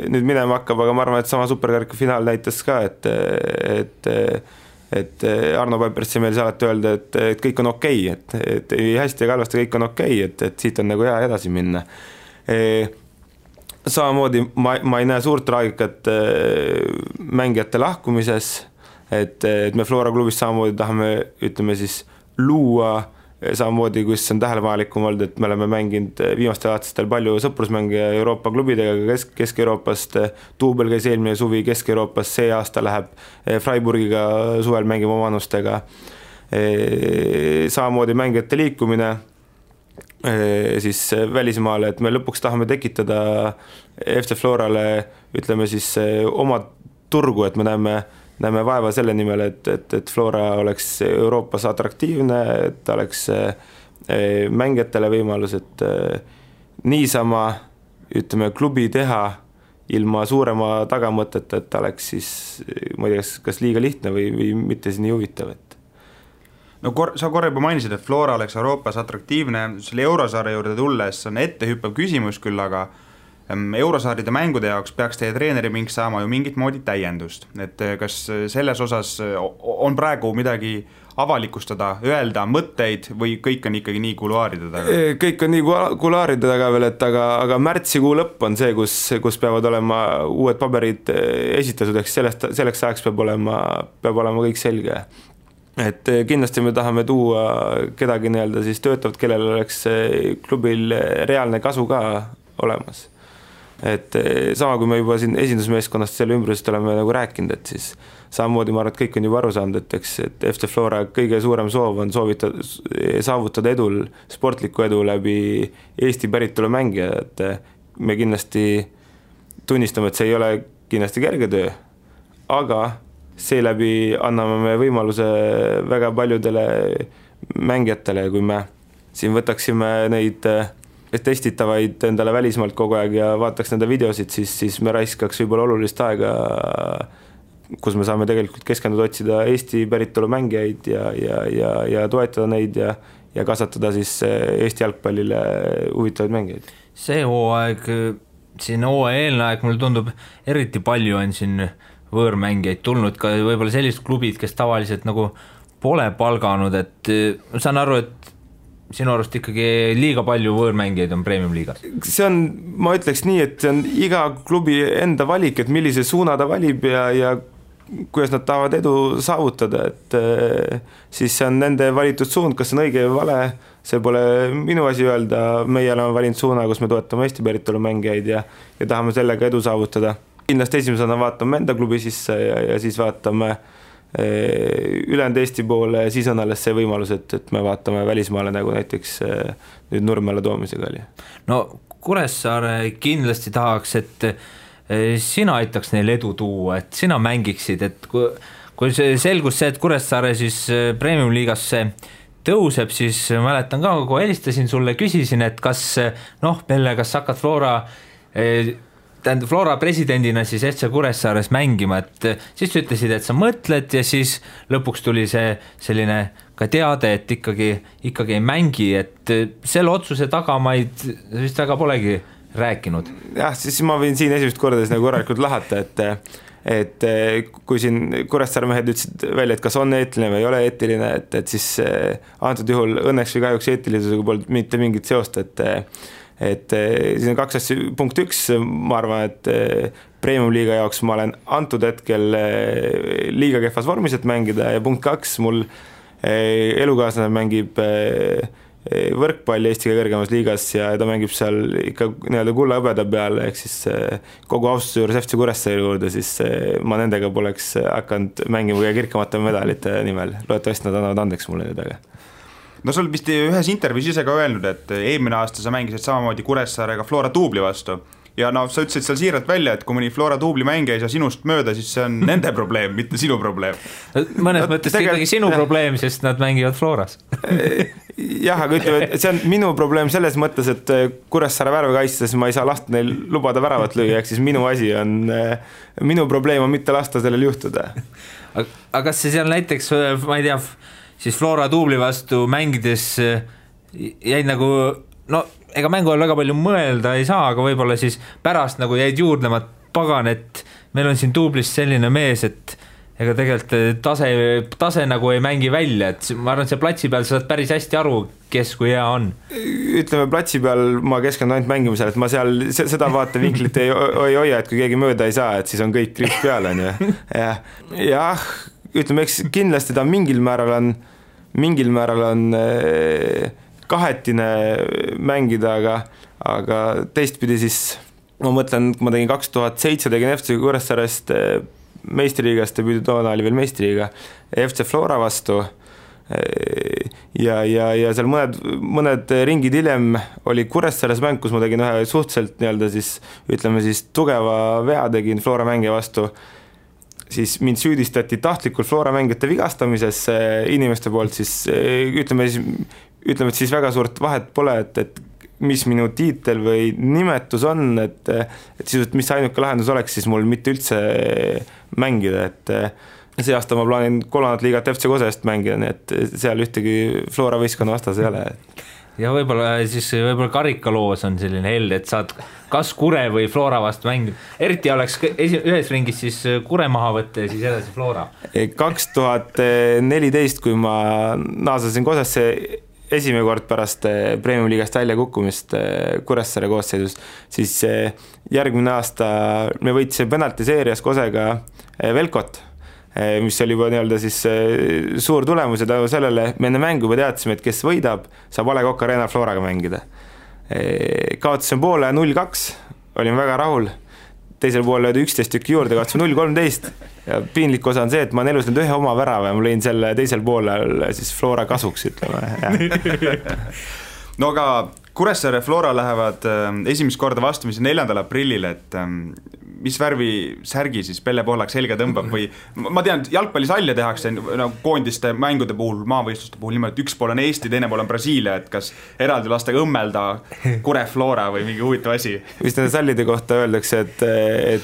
nüüd minema hakkab, aga ma arvan, et sama superkarika finaal näitas ka, et Arno Paipers meil alati öelda, et kõik on okei, et ei hästi ja halvasti, kõik on okei, et siit on nagu hea edasi minna. samamoodi ma ei näe suurt traagikat mängijate lahkumises, et me Flora klubis samamoodi tahame, ütleme siis, luua samamoodi, kus on tähelepanelikum olnud, et me oleme mänginud viimastel aastatel palju sõprusmänge Euroopa klubidega Kesk-Euroopast, Tuubel käis eelmine suvi Kesk-Euroopas, see aasta läheb Freiburgiga suvel mängima omanustega. Samamoodi mängijate liikumine siis välismaale, et me lõpuks tahame tekitada FC Florale, ütleme siis, oma turgu, et me näeme vaeva selle nimel, et Flora oleks Euroopas atraktiivne, et ta oleks mängijatele võimalus, et niisama, ütleme, klubi teha ilma suurema tagamõtet, et ta oleks siis, ma ei tea, kas liiga lihtne või mitte siis nii huvitav. No sa korra juba mainisid, et Flora oleks Euroopas atraktiivne, selle Eurosarja juurde tulles on ettehüppav küsimus küll, aga Eurosaaride mängude jaoks peaks teie treeneri mink saama ju mingit moodi täiendust, et kas selles osas on praegu midagi avalikustada, öelda mõtteid või kõik on ikkagi nii kuluaaride taga? Kõik on nii kuluaaride taga veel, et aga märtsikuu lõpp on see, kus peavad olema uued paberid esitatud, eks selleks ajaks peab olema kõik selge. Et kindlasti me tahame tuua kedagi nii-öelda siis töötavat, kellel oleks klubil reaalne kasu ka olemas. Et sama kui me juba siin esindusmeeskonnast selle ümbrusest oleme nagu rääkinud, et siis samamoodi ma arvan, et kõik on juba aru saanud, et FC Flora kõige suurem soov on saavutada edul, sportlikku edu läbi Eesti päritolu mängija, et me kindlasti tunnistame, et see ei ole kindlasti kerge töö, aga seeläbi anname me võimaluse väga paljudele mängijatele, kui me siin võtaksime neid testitavaid endale välismaalt kogu aeg ja vaataks nende videosid, siis me raiskaks võib-olla olulist aega, kus me saame tegelikult keskenduda otsida Eesti päritolu mängijaid ja toetada neid ja kasvatada siis Eesti jalgpallile huvitavaid mängijaid. See hooaeg, siin hooaja eelne aeg, mulle tundub eriti palju on siin võõrmängijaid tulnud, ka võib-olla sellised klubid, kes tavaliselt nagu pole palganud, et saan aru, et sinu arust ikkagi liiga palju võõrmängijaid on Premium-liigas? See on, ma ütleks nii, et see on iga klubi enda valik, et millise suuna ta valib ja kuidas nad tahavad edu saavutada, et siis see on nende valitud suund, kas see on õige või vale, see pole minu asi öelda, meie oleme valinud suuna, kus me toetame Eesti päritolu mängijaid ja tahame sellega edu saavutada. Kindlasti esimesena vaatame enda klubi sisse ja siis vaatame ülejäänud Eesti poole ja siis on alles see võimalus, et me vaatame välismaale nagu näiteks nüüd Nurmele toomisega oli. No Kuressaare kindlasti tahaks, et sina aitaks neil edu tuua, et sina mängiksid, et kui selgus see, et Kuressaare siis Premium-liigasse tõuseb, siis mäletan ka, kui helistasin sulle, küsisin, et kas hakkad Flora presidendina siis FC Kuressaares mängima, et siis ütlesid, et sa mõtled ja siis lõpuks tuli see selline ka teade, et ikkagi ei mängi, et selle otsuse tagamaid vist väga polegi rääkinud. Jah, siis ma võin siin esimest korda nagu korralikult lahata, et kui siin Kuressaare mehed ütlesid välja, et kas on eetiline või ei ole eetiline, et siis antud juhul õnneks või kahjuks eetilisusega polnud mitte mingit seost, et siin on kaks asja, punkt üks, ma arvan, et Premium-liiga jaoks ma olen antud hetkel liiga kehvas vormis, et mängida ja punkt kaks, mul elukaaslane mängib võrkpalli Eesti kõrgemas liigas ja ta mängib seal ikka nii-öelda kulla hõbeda peal, ehk siis kogu austuse juures FC Kuressaare juurde, siis ma nendega poleks hakanud mängima kõige kirkamate medalite nimel, loodetavasti nad annavad andeks mulle nüüd aga. No sul vist ühes intervjuus ise ka öelnud, et eelmine aasta sa mängisid samamoodi Kuressaarega Flora Tuubli vastu ja sa ütlesid seal siiralt välja, et kui mõni Flora Tuubli mängija ei saa sinust mööda, siis see on nende probleem, mitte sinu probleem. Mõnes mõttes ikkagi sinu probleem, sest nad mängivad Floras. Jah, aga ütleme, et see on minu probleem selles mõttes, et Kuressaare värve kaitstes ma ei saa lasta neil lubada väravat lüüa, ehk siis minu probleem on mitte lasta sellel juhtuda. Aga kas see seal näiteks, ma ei tea, siis Flora Tuubli vastu mängides jäid nagu, ega mängu all väga palju mõelda ei saa, aga võib-olla siis pärast nagu jäid juurdlema, pagan, et meil on siin Tuublis selline mees, et ega tegelikult tase nagu ei mängi välja, et ma arvan, et see platsi peal saad päris hästi aru, kes kui hea on. Ütleme, platsi peal ma keskendun ainult mängimisel, et ma seal seda vaatevinklit ei hoia, et kui keegi mööda ei saa, et siis on kõik kriis peal, on ju. Jah, ütleme, eks kindlasti ta mingil määral on kahetine mängida, aga teistpidi siis ma mõtlen, kui ma tegin 2007, tegin FC Kuressaarest meistriliigast, debüüdi toona oli veel meistriliiga FC Flora vastu ja seal mõned ringid hiljem oli Kuressaares mäng, kus ma tegin ühe suhteliselt nii-öelda siis, ütleme siis tugeva vea tegin Flora mängija vastu, siis mind süüdistati tahtlikult Flora mängijate vigastamises inimeste poolt, siis ütleme, et siis väga suurt vahet pole, et mis minu tiitel või nimetus on, et siis, mis ainuke lahendus oleks, siis mul mitte üldse mängida, et see aasta ma plaanin 3. liigat FC Kosest mängida, nii et seal ühtegi Flora võistkonna vastas ei ole. Ja võib-olla karikaloos on selline held, et saad kas Kure või Flora vastu mängida. Eriti oleks ühes ringis siis Kure maha võtta ja siis edasi Flora. 2014, kui ma naasasin Kosesse esimene kord pärast Premium-liigast välja kukkumist Kuressaare koosseisus, siis järgmine aasta me võitsime penaltiseerias Kosega Velkot, mis oli juba nii-öelda siis suur tulemus ja tänu sellele me enne mängu juba teadsime, et kes võidab, saab A. Le Coq Arena Floraga mängida. Kaotasime poole 0-2, olin väga rahul. Teisel pool löödi 11 tükki juurde, kaotasime 0-13 ja piinlik osa on see, et ma olen elus nüüd ühe oma värava ja ma lõin selle teisel poolel siis Flora kasuks, ütleme. No aga Kuressaare Flora lähevad esimest korda vastamisi 4. aprillil, et mis värvi särgi siis Pelle Pohlak selga tõmbab või ma tean, et jalgpallisalle tehakse koondiste mängude puhul, maavõistluste puhul niimoodi, üks pool on Eesti, teine pool on Brasiilia, et kas eraldi lastega õmmelda Kure Flora või mingi huvitav asi? Vist nende sallide kohta öeldakse, et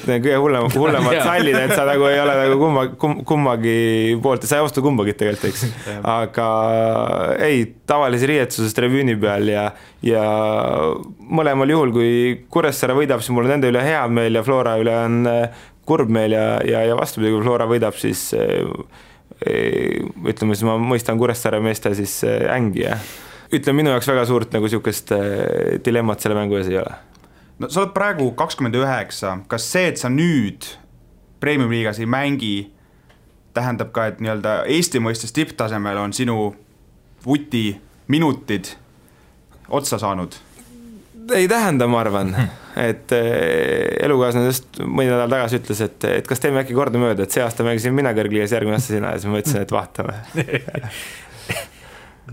kõige hullemad sallid, et sa nagu ei ole nagu kummagi poolt, sa ei osta kumbagi tegelikult, eks. Aga ei, tavalise riietuses tribüüni peal ja mõlemal juhul, kui Kuressaare võidab, siis mul on nende üle hea meel ja Flora üle on kurb meel ja vastupidi, kui Flora võidab, siis ütleme, siis ma mõistan Kuressaare meeste siis ängi ja ütleme, minu jaoks väga suurt nagu sihukest dilemmat selle mängu ees ei ole. No sa oled praegu 29, kas see, et sa nüüd Premium-liigas ei mängi, tähendab ka, et nii-öelda Eesti mõistes tipptasemel on sinu vuti minutid otsa saanud? Ei tähenda, ma arvan, et elukaaslane mõni nädal tagasi ütles, et kas teeme äkki korda mööda, et see aasta mängisin mina kõrgliigas, järgmine aasta sina ja siis ma ütlesin, et vaatame.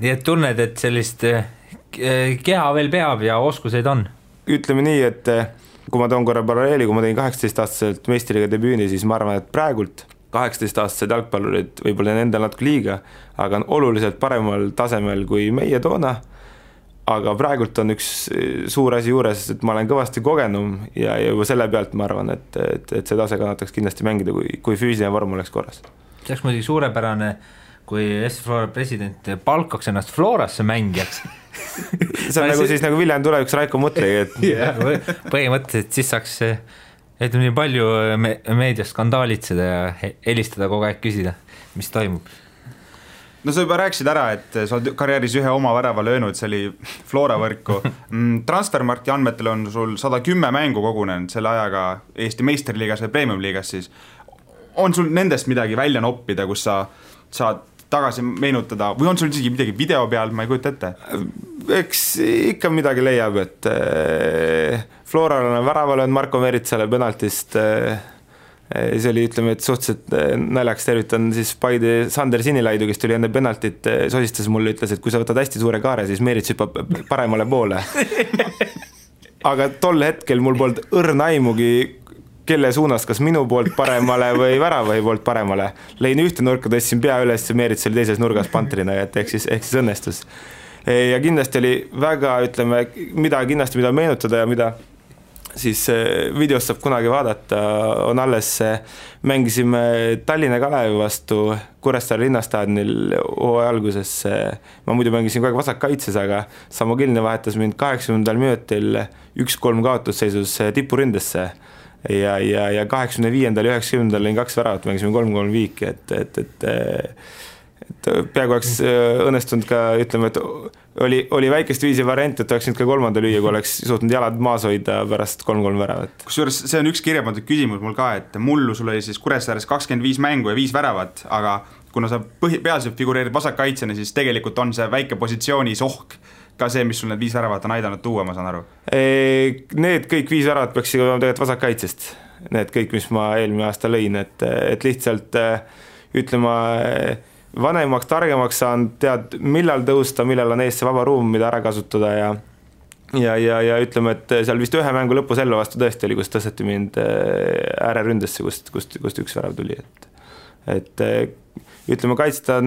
Nii et tunned, et sellist keha veel peab ja oskuseid on? Ütleme nii, et kui ma toon korra paralleeli, kui ma tegin 18-aastaselt meistriliiga debüüni, siis ma arvan, et praegult 18-aastased jalgpallurid võib-olla endal natuke liiga, aga on oluliselt paremal tasemel kui meie toona. Aga praegult on üks suur asi juures, et ma olen kõvasti kogenum ja juba selle pealt ma arvan, et see tase kannataks kindlasti mängida, kui füüsiline vorm oleks korras. See oleks muidugi suurepärane, kui Eesti Flora president palkaks ennast Florasse mängijaks. See on nagu siis nagu Viljandi tuleviks Raiko Mutri. Põhimõtteliselt siis saaks nii palju meedias skandaalitseda ja helistada kogu aeg küsida, mis toimub. No sa juba rääkisid ära, et sa oled karjääris ühe oma värava löönud, see oli Flora võrku. Transfermarkti andmetel on sul 110 mängu kogunenud selle ajaga Eesti meistriliigas või Premium-liigas siis. On sul nendest midagi välja noppida, kus sa saad tagasi meenutada või on sul isegi midagi video peal, ma ei kujuta ette? Eks ikka midagi leiab, et Floral on väraval on Marko Meritsale penaltist. See oli, ütleme, et suhteliselt naljaks tervitan siis Paide Sander Sinilaidu, kes tuli enne penaltit, sosistas mulle, ütles, et kui sa võtad hästi suure kaare, siis Merits hüppab paremale poole. Aga tol hetkel mul polnud õrna aimugi, kelle suunas, kas minu poolt paremale või väravahi poolt paremale. Lein ühte nurka, tõstsin pea üles ja Merits oli teises nurgas pantrina, et ehk siis õnnestus. Ja kindlasti oli väga, ütleme, mida meenutada ja mida siis videost saab kunagi vaadata, on alles mängisime Tallinna Kalevi vastu Kuressaare linnastaadionil hooaja alguses. Ma muidu mängisin kogu aeg vasakkaitses, aga Samo Kilne vahetas mind 80. minutil 1-3 kaotusseisus tipurindesse. ja 85. ja 90. lõin 2 väravat, mängisime 3-3 viiki, et peaaegu oleks õnnestunud ka, ütleme, et oli väikest viisi variant, et oleks nüüd ka 3. lüüa, kui oleks suutnud jalad maas hoida pärast 3-3 väravat. Kusjuures see on üks kirjapandud küsimus mul ka, et mullu sul oli siis Kuressaares 25 mängu ja 5 väravat, aga kuna sa peaselt figureerid vasakkaitsjana, siis tegelikult on see väike positsioonis ohk ka see, mis sul need 5 väravat on aidanud tuua, ma saan aru. Need kõik 5 väravat peaks olema tegelikult vasakkaitsest. Need kõik, mis ma eelmine aasta lõin, et lihtsalt ütlema vanemaks, targemaks saan, tead, millal tõusta, millal on ees see vaba ruum, mida ära kasutada ja ütleme, et seal vist ühe mängu lõpu selle vastu tõesti oli, kus tõsteti mind ääreründesse, kust 1 värav tuli, et ütleme, kaitsta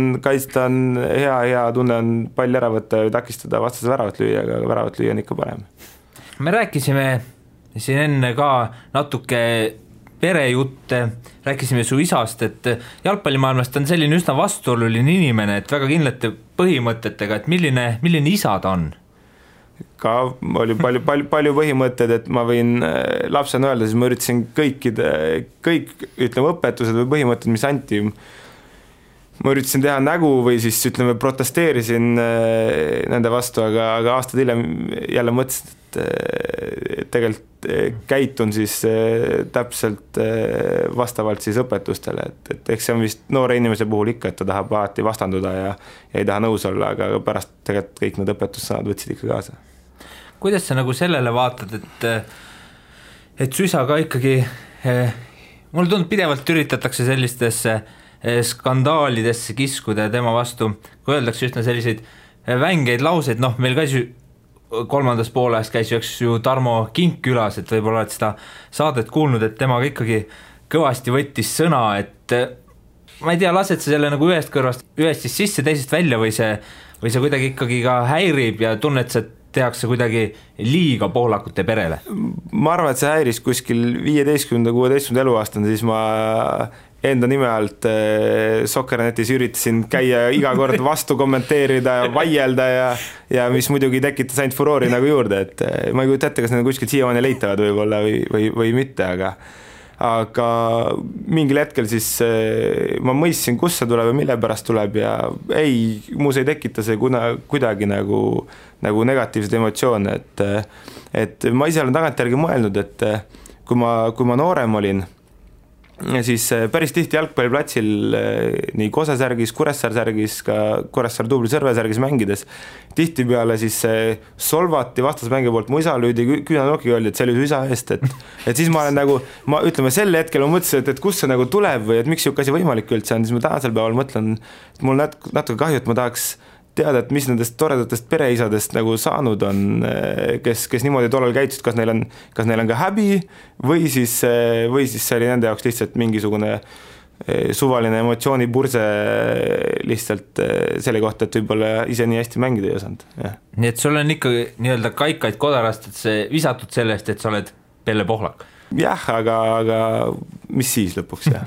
on hea tunne on pall ära võtta ja takistada vastase väravat lüüa, aga väravat lüüa on ikka parem. Me rääkisime siin enne ka natuke perejutte, rääkisime su isast, et jalgpallimaailmast on selline üsna vastuoluline inimene, et väga kindlate põhimõtetega, et milline isa ta on? Ka oli palju põhimõtted, et ma võin lapsena öelda, siis ma üritasin kõik ütleme õpetused või põhimõtted, mis anti, ma üritasin teha nägu või siis ütleme protesteerisin nende vastu, aga aastad hiljem jälle mõtlesin, et tegelikult käitun siis täpselt vastavalt siis õpetustele, et eks see on vist noore inimese puhul ikka, et ta tahab alati vastanduda ja ei taha nõus olla, aga pärast tegelikult kõik need õpetussõnad võtsid ikka kaasa. Kuidas sa nagu sellele vaatad, et su isa ka ikkagi, mulle tundub pidevalt üritatakse sellistesse skandaalidesse kiskuda tema vastu, kui öeldakse üsna selliseid vängeid lauseid, meil käis ju 3. poolajast käis ju Tarmo Kink külas, et võib-olla oled seda saadet kuulnud, et temaga ikkagi kõvasti võttis sõna, et ma ei tea, lased sa selle nagu ühest siis sisse, teisest välja või see kuidagi ikkagi ka häirib ja tunned, et tehakse kuidagi liiga poolakute perele? Ma arvan, et see häiris kuskil 15-16 eluaastane, siis ma enda nime alt Soccernetis üritasin käia iga kord vastu kommenteerida ja vaielda ja mis muidugi tekitas ainult furoori nagu juurde, et ma ei kujuta ette, kas need kuskilt siiamaani leitavad võib-olla või mitte, aga mingil hetkel siis ma mõistsin, kus see tuleb ja mille pärast tuleb ja muus ei tekita see kuidagi nagu negatiivsed emotsioone, et ma ise olen tagantjärgi mõelnud, et kui ma noorem olin, siis päris tihti jalgpalliplatsil nii Kose särgis, Kuressaare särgis, ka Kuressaare Tubli Sõrve särgis mängides, tihti peale siis solvati vastasmängi poolt, mu isa lüüdi küünanokiga, öeldi, et see oli su isa eest, et siis ma olen nagu, ütleme sel hetkel ma mõtlesin, et kust see nagu tuleb või et miks siuke asi võimalik üldse on, siis ma tänasel päeval mõtlen, et mul natuke kahju, et ma tahaks teada, et mis nendest toredatest pereisadest nagu saanud on, kes niimoodi tollal käitusid, kas neil on ka häbi või siis see oli nende jaoks lihtsalt mingisugune suvaline emotsioonipurse lihtsalt selle kohta, et võib-olla ise nii hästi mängida ei osanud. Nii et sul on ikka nii-öelda kaikaid kodarast, et see visatud sellest, et sa oled Pelle Pohlak? Jah, aga mis siis lõpuks, jah.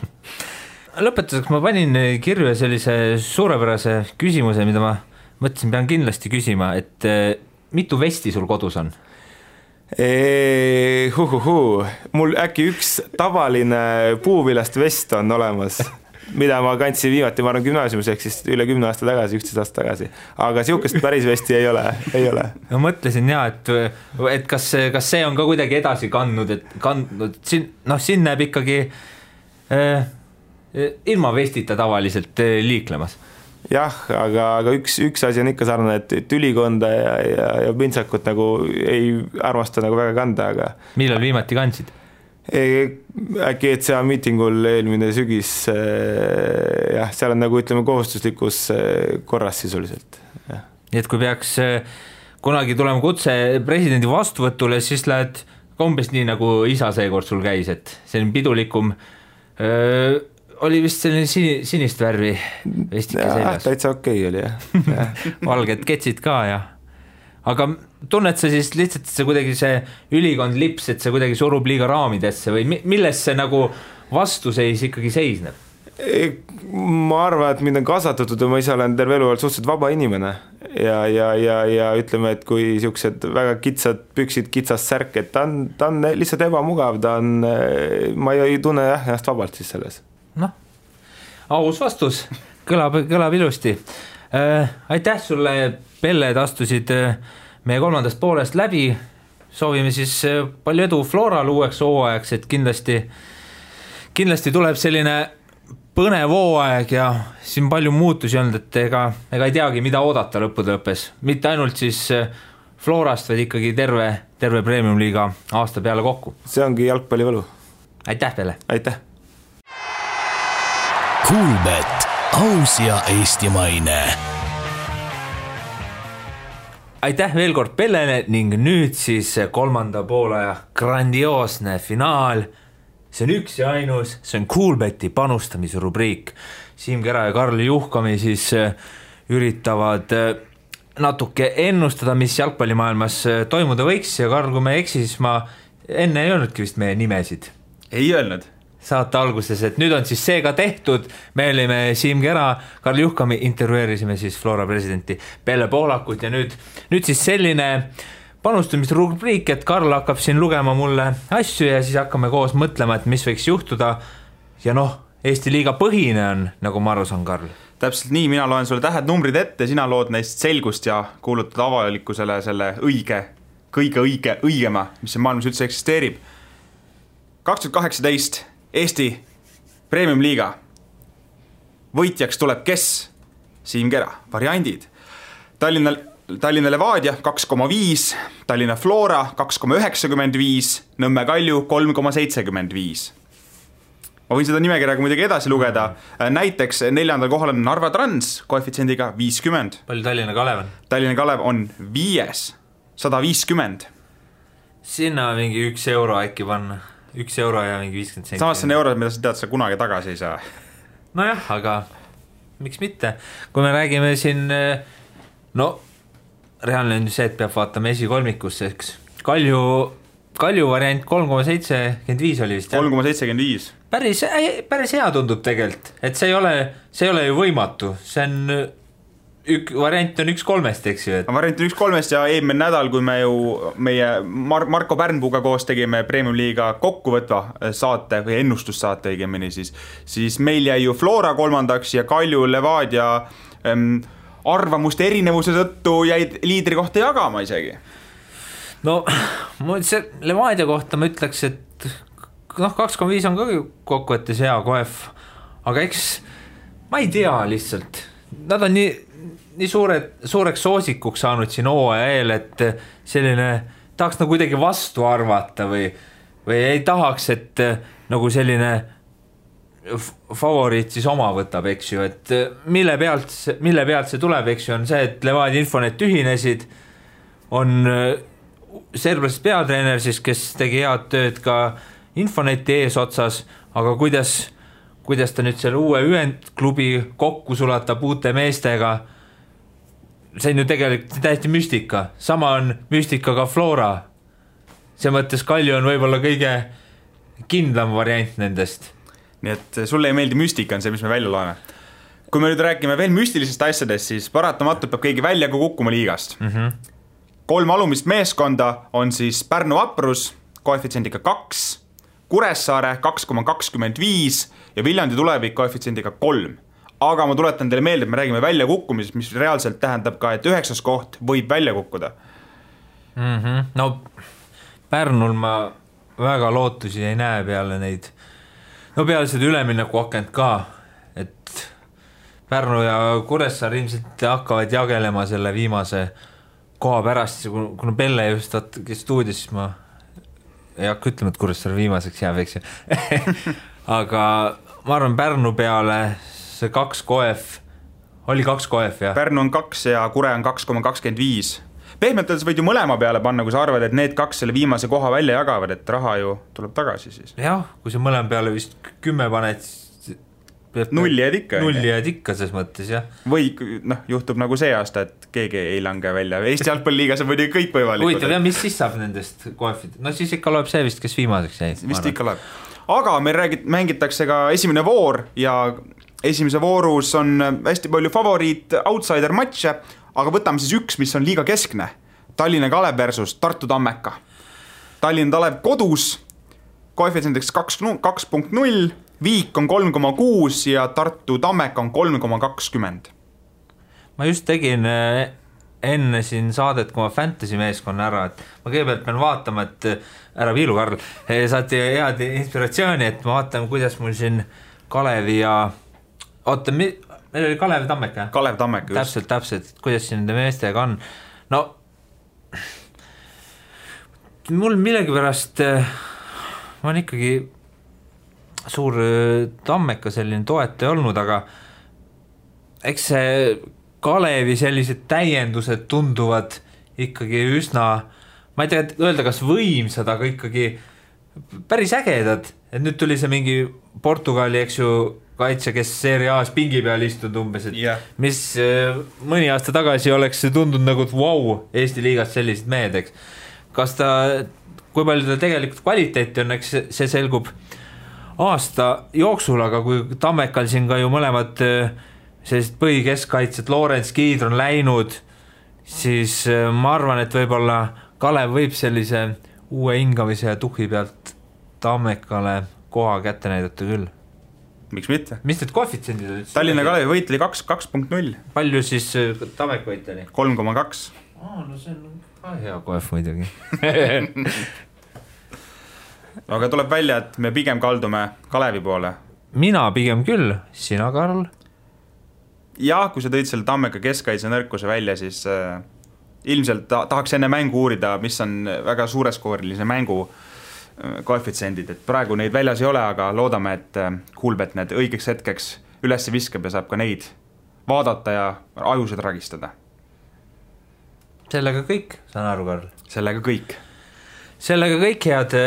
Lõpetuseks ma panin kirja sellise suurepärase küsimuse, mida ma mõtlesin, pean kindlasti küsima, et mitu vesti sul kodus on? Mul äkki üks tavaline puuvilast vest on olemas, mida ma kandsin viimati, ma arvan gümnaasiumis, ehk siis üle 10 aasta tagasi, 11 aasta tagasi, aga siukest päris vesti ei ole. Ma mõtlesin et kas see on ka kuidagi edasi kandnud, siin näeb ikkagi ilma vestita tavaliselt liiklemas. Jah, aga üks asi on ikka sarnane, et ülikonda ja pintsakut nagu ei armasta nagu väga kanda, aga millal viimati kandsid? Äkki ECA miitingul eelmine sügis, jah, seal on nagu ütleme kohustuslikus korras sisuliselt. Nii et kui peaks kunagi tulema kutse presidendi vastuvõtule, siis lähed umbes nii nagu isa seekord sul käis, et selline pidulikum oli vist selline sinist värvi vestike seljas. Täitsa okei oli, jah. Valged ketsid ka, jah. Aga tunned sa siis lihtsalt, et see kuidagi see ülikond lips, et see kuidagi surub liiga raamidesse või milles see nagu vastuseis ikkagi seisneb? Ma arvan, et mind on kasvatatud ja ma ise olen terve elu suhteliselt vaba inimene ja ütleme, et kui siuksed väga kitsad püksid, kitsas särk, et ta on lihtsalt ebamugav, ma ei tunne ennast vabalt siis selles. Noh, aus vastus, kõlab ilusti. Aitäh sulle, Pelle, et astusid meie 3. poolest läbi. Soovime siis palju edu Floral uueks hooajaks, et kindlasti tuleb selline põnev hooaeg ja siin palju muutusi on, et ega ei teagi, mida oodata lõppude lõppes. Mitte ainult siis Florast, vaid ikkagi terve Premium-liiga aasta peale kokku. See ongi jalgpallivõlu. Aitäh, Pelle! Aitäh! Kuulbet, aus ja eestimaine. Aitäh veel kord Pellele ning nüüd siis 3. poolaja grandioosne finaal. See on üks ja ainus, see on Kuulbeti panustamise rubriik. Siim Kera ja Karl Juhkami siis üritavad natuke ennustada, mis jalgpallimaailmas toimuda võiks ja Karl, kui me eksi, siis ma enne ei öelnudki vist meie nimesid. Ei öelnud. Saate alguses, et nüüd on siis see ka tehtud, me olime Siim Kera, Karl Juhkami, intervjueerisime siis Flora presidenti Pelle Pohlakut ja nüüd siis selline panustamisrubriik, et Karl hakkab siin lugema mulle asju ja siis hakkame koos mõtlema, et mis võiks juhtuda ja Eesti liiga põhine on, nagu ma aru saan, Karl. Täpselt nii, mina loen sulle tähed numbrid ette, sina lood neist selgust ja kuulutad avalikkusele selle kõige õigema, mis see maailmas üldse eksisteerib. 2018 Eesti Premium-liiga võitjaks tuleb kes? Siim Kera, variandid. Tallinna Levadia 2,5, Tallinna Flora 2,95, Nõmme Kalju 3,75. Ma võin seda nimekirjaga muidugi edasi lugeda. Näiteks 4. kohal on Narva Trans koefitsiendiga 50. Palju Tallinna Kalev on? Tallinna Kalev on 5, 150. Sinna mingi 1 euro äkki panna. 1 euro ja mingi 50 senti. Samas see on eurod, mida sa tead, sa kunagi tagasi ei saa. Nojah, aga miks mitte? Kui me räägime siin, reaalne on see, et peab vaatama esikolmikusse, eks. Kalju variant 3,75 oli vist. 3,75. Päris hea tundub tegelikult, et see ei ole ju võimatu. See on variant on 1-3, eks ju. Variant on 1-3 ja eelmine nädal, kui me ju meie Marko Pärnpuuga koos tegime Premium-liiga kokkuvõtva saate või ennustussaate õigemini, siis meil jäi ju Flora 3. ja Kalju Levadia arvamuste erinevuse tõttu jäid liidri kohta jagama isegi. No, see Levadia kohta ma ütleks, et 2,5 on ka kokkuvõttes hea koef, aga eks ma ei tea lihtsalt. Nad on nii suureks soosikuks saanud siin hooaja eel, et selline tahaks nagu kuidagi vastu arvata või ei tahaks, et nagu selline favoriit siis oma võtab, eks ju, et mille pealt see tuleb, eks ju, on see, et Levadia Infonet ühinesid, on serblasest peatreener siis, kes tegi head tööd ka Infoneti eesotsas, aga kuidas ta nüüd selle uue ühendklubi kokku sulatab uute meestega, see on ju tegelikult täiesti müstika. Sama on müstika ka Flora. See mõttes Kalju on võib-olla kõige kindlam variant nendest. Nii et sulle ei meeldi müstika, on see, mis me välja loeme. Kui me nüüd räägime veel müstilisest asjadest, siis paratamatult peab keegi välja kukkuma liigast. 3 alumist meeskonda on siis Pärnu Vaprus koefitsiendiga 2, Kuressaare 2,25 ja Viljandi Tulevik koefitsiendiga 3. Aga ma tuletan teile meelde, et me räägime välja kukkumisest, mis reaalselt tähendab ka, et 9. koht võib välja kukkuda. No Pärnul ma väga lootusi ei näe peale neid. No peale seda ülemineku akent ka, et Pärnu ja Kuressaare ilmselt hakkavad jagelema selle viimase koha pärast, kuna Pelle just stuudios, siis ma ei hakka ütlema, et Kuressaare viimaseks jääb, eks ju. Aga ma arvan, Pärnu peale see 2 koef, oli 2 koef, jah? Pärnu on 2 ja Kure on 2,25. Pehmelt öeldes võid ju mõlema peale panna, kui sa arvad, et need 2 selle viimase koha välja jagavad, et raha ju tuleb tagasi siis. Jah, kui sa mõlema peale vist 10 paned, nulli jääd ikka ses mõttes, jah. Või juhtub nagu see aasta, et keegi ei lange välja. Eesti jalgpalliliigas on muidugi kõik võimalikud. Huvitav, ja mis siis saab nendest koefid? No siis ikka loeb see vist, kes viimaseks jäi. Vist ikka loeb. aga meil mängitakse ka esimene voor ja esimese voorus on hästi palju favoriit outsider matše, aga võtame siis üks, mis on liiga keskne. Tallinna Kalev versus Tartu Tammeka. Tallinna Kalev kodus, koefitsiendiks 2.0, Viik on 3,6 ja Tartu Tammeka on 3,20. Ma just tegin enne siin saadet, kui ma fantasy meeskonna ära, et ma kõigepealt pean vaatama, et ära viilu, Karl, saati head inspiratsiooni, et ma vaatan, kuidas mul siin Kalevi ja oota, meil oli Kalev Tammeka? Kalev Tammeka, just. Täpselt, kuidas siin nende meestega on. No, mul millegipärast ma on ikkagi suur Tammeka selline toetaja olnud, aga eks see Kalevi sellised täiendused tunduvad ikkagi üsna, ma ei tea, öelda kas võimsad, aga ikkagi päris ägedad. Et nüüd tuli see mingi Portugali, eks ju, kaitse, kes Serie A's pingi peal istunud umbes, et mis mõni aasta tagasi oleks tundunud nagu, et wow, Eesti liigast sellised mehed, eks. Kas ta, kui palju ta tegelikult kvaliteeti on, eks see selgub aasta jooksul, aga kui Tammekal siin ka ju mõlemad sellised põhikeskkaitsed, Lorents Kiidr on läinud, siis ma arvan, et võib-olla Kalev võib sellise uue hingamise ja tuhhi pealt Tammekale koha kätte näidata küll. Miks mitte? Mis need koefitsendid olid? Tallinna Kalevi võit oli 2.0. Palju siis Tammeka võit oli? 3,2. No see on ka hea koef muidugi. Aga tuleb välja, et me pigem kaldume Kalevi poole. Mina pigem küll, sina, Karl? Jah, kui sa tõid selle Tammeka keskkaitse nõrkuse välja, siis ilmselt tahaks enne mängu uurida, mis on väga suureskoorilise mängu koefitsendid, et praegu neid väljas ei ole, aga loodame, et Kuulbet need õigeks hetkeks üles viskab ja saab ka neid vaadata ja ajused ragistada. Sellega kõik, saan aru, Karl? Sellega kõik. Sellega kõik, head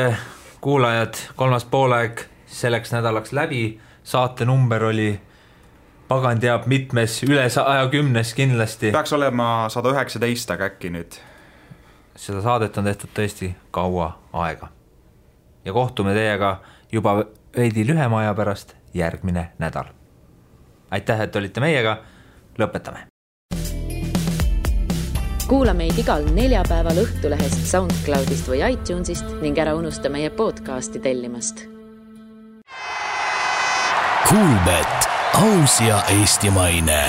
kuulajad, kolmas poolaeg selleks nädalaks läbi, saate number oli pagan teab mitmes, üle 110 kindlasti. Peaks olema 119, aga äkki nüüd. Seda saadet on tehtud tõesti kaua aega. Ja kohtume teiega juba veidi lühema aja pärast järgmine nädal. Aitäh, et olite meiega, lõpetame. Kuula meid igal neljapäeval Õhtulehest, SoundCloudist või iTunesist ning ära unusta meie podcasti tellimast. Kuulbet, aus ja eestimaine.